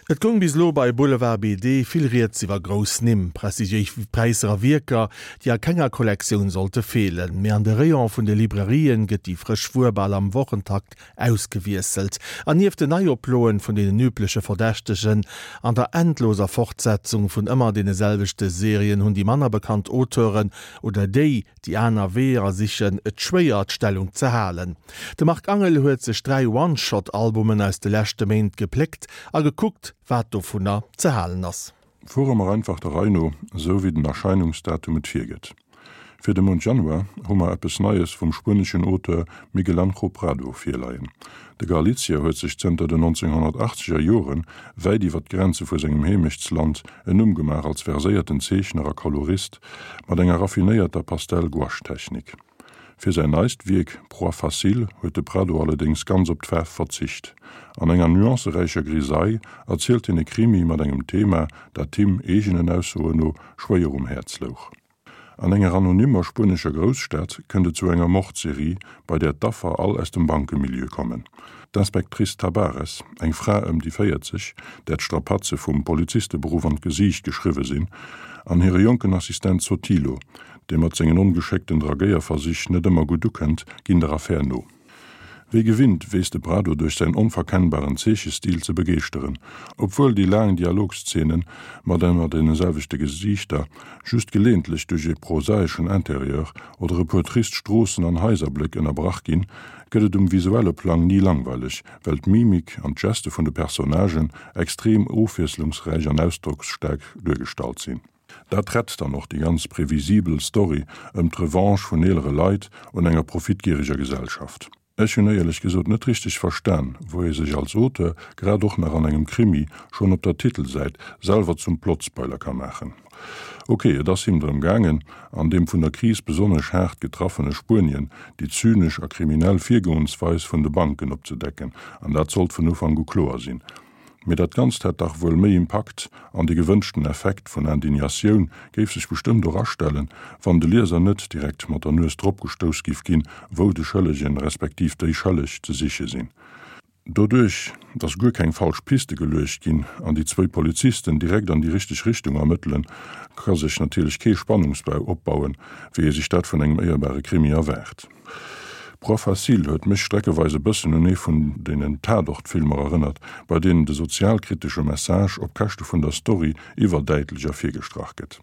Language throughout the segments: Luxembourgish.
Et goung bis elo bei Boulevard BD vill rieds iwwer grouss Nimm, prestigiéis Präisser a Wierker, déi a kenger Kollektioun sollte feelen. Mee an de Rayon vun de Librairien gëtt déi frësch Wuer bal am Wochentakt ausgewiesselt. An nieft den Neioploen vun deenen übleche Verdächtegen an der endloser Fortsetzung vun ëmmer deene selwechte Serien hunn déi manner bekannt Auteuren oder déi, déi aner Weeër sichen, et schwéier, d'Stellung ze halen. De Marc Angel huet sech 3 One-Shot-Albumen aus de leschte Méint gepléckt a gekuckt, wat dovunner ze halen ass. Fuere mer einfach der Rei no, esou wéi den Erscheinungsdatum et virgëtt. Fir de Mount Januar hu mer eppes Neies vum spueneschen Auteur Miguel Anjo Prado virleien. De Galizier huet sech zënter den 1980er Jore wäit iwwer d'Grenze vu sengem Heemechtsland en Numm gemaach als verséierten Zeechner a Kolorist mat enger raffinéierter Pastell-Gouache-Technik. Fir säin neist Wierk Proie facile huet de Prado allerdéngs ganz op d'Faarf verzicht. An enger nuanceräicher Grisaille erzielt hien e Krimi mat engem Thema, dat him, eegenen Aussoen no, schwéier um Häerz louch. An enger anonymmer spuenescher Grousstad kënnt et zu enger Mordserie, bei där d'Affer all aus dem Bankemilieu kommen. D'Inspectrice Tabares, eng Fra ëm déi 40, där d'Strapaze vum Polizisteberuff an d'Gesiicht geschriwwe sinn, an hire jonken Assistent Sotilo, dee mat sengen ongeschéckten Dragéierversich net ëmmer gutt ukënnt, ginn der Affär no. Wéi gewinnt weess de Prado duerch säin onverkennbaren Zeechestil ze begeeschteren, obwuel déi laang Dialogszenen mat ëmmer deene selwechte Gesiichter just geleeëntlech duerch e prosaeschen Interieur oder e puer trist Stroossen an Haiserbléck ënnerbrach ginn, gëtt et um visuelle Plang ni langweileg, well d'Mimik an d'Geste vun de Personnagen extrem ofwiesslungsräich an ausdrocksstaark duergestallt sinn. Dat rett dann och déi ganz previsibel Story ëm d'Revanche vun eelere Leit un enger profitgiereger Gesellschaft. Ech hunn éierlech gesot net richteg verstan, wou ee sech als Auteur, grad och nach an engem Krimi, schonn op der Titelsäit selwer zum Plotspoiler ka maachen. Ok, et ass him drëm gaangen, an deem vun der Kris besonnesch haart getraffene Spuenien déi zynesch a kriminell Virgoensweis vun de Banken opzedecken, an dat sollt vun Ufank u kloer sinn. Mee dat Ganzt hätt dach wuel méi Impakt an de gewënschten Effekt vun Indignatioun géif sech bestëmmt och astellen, wann de Lieser net direkt mat der Nues drop gestouss giff ginn, wou de Schëllegen, respektiv déi Schëlleg ze siche sinn. Doduerch, dass guer keng falsch Piste geluecht ginn an déi zwéi Polizisten direkt an déi richteg Richtung ermëttelen, ka sech natierlech kee Spannungsbau opbauen, wéi ee sech dat vun engem éierbare Krimi erwaart. Proie facile huet mech streckeweis e bëssen un ee vun deenen Tatort-Filmer erënnert, bei deenen de sozialkritesche Message op Käschte vun der Story iwwerdäitlech ervirgestrach gëtt.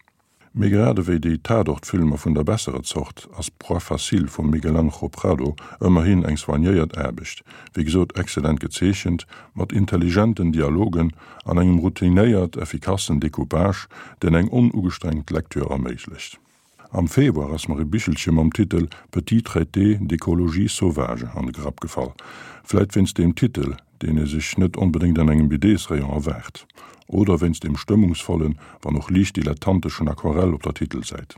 Mee grad ewéi déi Tatort-Filmer vun der besserer Zort ass Proie facile vum Miguel Anjo Prado ëmmerhin eng soignéiert Aarbecht, wéi gesot excellent gezeechent, mat intelligenten Dialogen an engem routinéiert effikassen Decoupage, deen eng onugestrengt Lecture erméiglecht. Am Februar ass mer e Bichelche mam Titel Petit traité d'écologie sauvage an de Grapp gefall. Vläit wéinst deem Titel, deen ee sech net onbedéngt an engem BDs-Rayon erwaart. Oder wéinst deem stëmmungsvollen, wann och liicht dilettanteschen Aquarell op der Titelsäit.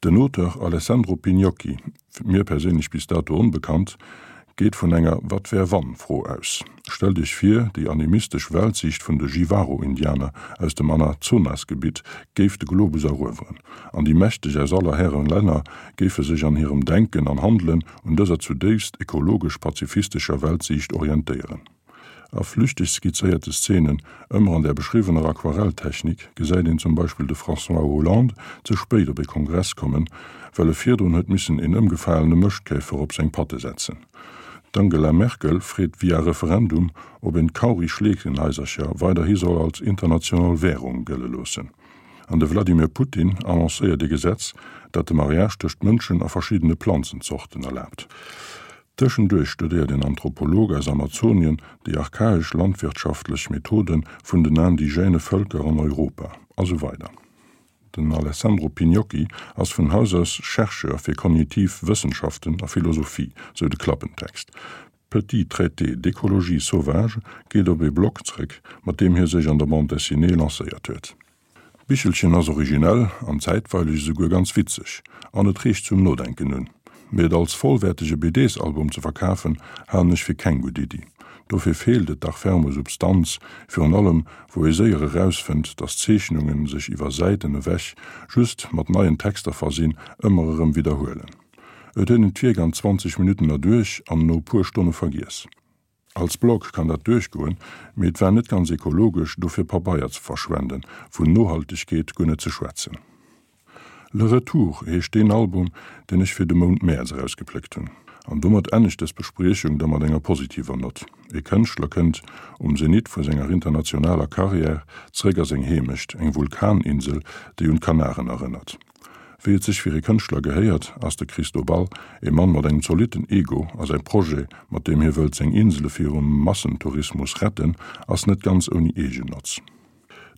Den Auteur Alessandro Pignocchi, mir perséinlech bis dato onbekannt, geet vun enger Wat wär wann? Fro aus. Stellt Iech vir, déi animistesch Weltsiicht vun de Jivaro-Indianer aus dem Anazonasgebitt géif de Globus erueweren, an déi Mächteg aus aller Hären Länner géife sech an hirem Denken an Handelen un dëser zudéifst ekologesch-pazifistescher Weltsiicht orientéieren. A flüchteg skizzéierte Szenen, ëmmer an där beschriwwener Aquarelltechnik, gesäit een zum Beispill de François Hollande ze spéit op ee Kongress kommen, well e virdrun huet missen een ëmgefalene Mëschtkäfer op seng Patte setzen. D'Angela Merkel freet via Referendum, ob een d'Kauri-Schleekenhaisercher weiderhi soll als international Währung gëlle loossen. An de Vladimir Putin annoncéiert ee Gesetz, dat de Mariage tëscht Mënschen a verschiddene Planzenzorten erlaabt. Tëschenduerch studéiert een Anthropolog aus Amazonien déi archaesch landwirtschaftlech Methode vun den indigène Vëlker an Europa, a sou weider. Den Alessandro Pignocchi ass vun Haus aus Chercheur fir kognitiv Wëssenschaften a Philosophie, sou de Klappentext. Petit traité d'écologie sauvage geet op ee Blog zréck, mat deem hie sech an der Bande dessinée lancéiert huet. D'Bichelchen ass originell an zäitweileg esouguer ganz witzeg an et reegt zum Nodenken un. Mee et als vollwäertege BDs-Album ze verkafen, halen ech fir keng gutt Iddi. Dofir feelt et dach ferm u Substanz, virun allem wou ee séier erausfënnt, dass d'Zeechnungen sech iwwer Säiten ewech, just mat neien Texter versinn, ëmmer erëm widderhuelen. Et huet een d'Wierk an 20 Minutten erduerch an no puer Stonne vergiess. Als Blog kann dat duerchgoen, mee et war net ganz ekologesch, dofir Pabeier ze verschwenden, vun Nohaltegkeet guer net ze schwätzen. Le Retour heescht deen Album, deen ech fir de Mount Mäerz erausgepléckt hunn. An domat ennegt dës Bespriechung da mat enger positiver Nott. Ee Kënschtler kënnt um Zenit vu senger internationaler Karriär zréck a seng Heemecht, eng Vulkaninsel, déi un d'Kanaren erënnert. Wéi et sech fir ee Kënschtler gehéiert, ass de Cristobal ee Mann mat engem zolitten Ego a säi Projet, mat deem hie wëllt seng Insele virum Massentourismus retten, ass net ganz ouni Eegennotz.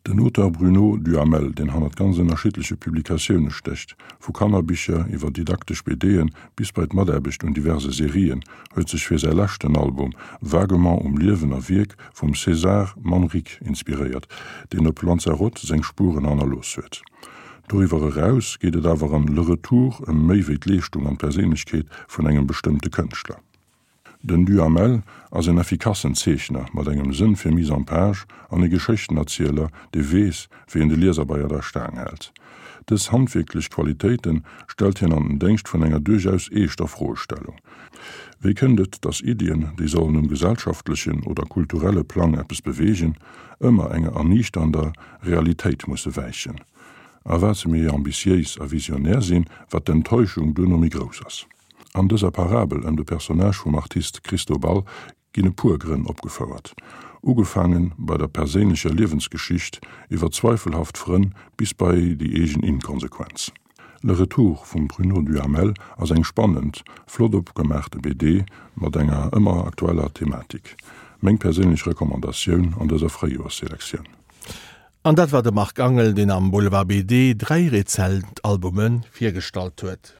Den Auteur Bruno Duhamel, deen hannert ganz ënnerschiddleche Publikatioune stécht, vu Kannerbicher iwwer didaktesch BD'en bis bei d'Mataarbecht un diverse Serien, huet sech fir säi leschten Album vaguement um Liewen a Wierk vum César Manrique inspiréiert, deen op Lanzarote seng Spueren hannerlooss huet. Doriwwer eraus geet et awer an Le Retour ëm méi wéi d'Leeschtung an d'Perséinlechkeet vun engem bestëmmte Kënschtler. Den Duhamel ass en effikassen Zeechner mat engem Sënn fir Mise en page an e Geschéchtenerzieler, dee weess, wéi en de Lieser bei der Staang hält. Dës handwierklech Qualitéite stellt hien an den Déngscht vun enger duerchaus eeschter Froestellung, Wéi kënnt et, datt Iddien, déi sollen um gesellschaftlechen oder kulturelle Plang eppes beweegen, ëmmer enger erniichternder Realitéit musse wäichen? A wat se méi ambitiéis a visionär sinn, wat d'Enttäuschung duerno méi grouss ass. An dëser Parabel ëm de Personnage vum Artist Cristobal ginn e puer Grënn opgefouert, ugefaange bei der perséinlecher Liewensgeschicht, iwwer zweifelhaft Frënn bis bei déi eegen Inkonsequenz. Le Retour vum Bruno Duhamel ass eng spannend, flott opgemaachte BD mat enger ëmmer aktueller Thematik. Meng perséinlech Recommandatioun an dëser Fréijoersselektioun. An dat war de Marc Angel, deen am Boulevard BD 3 rezent Albume virgestallt huet.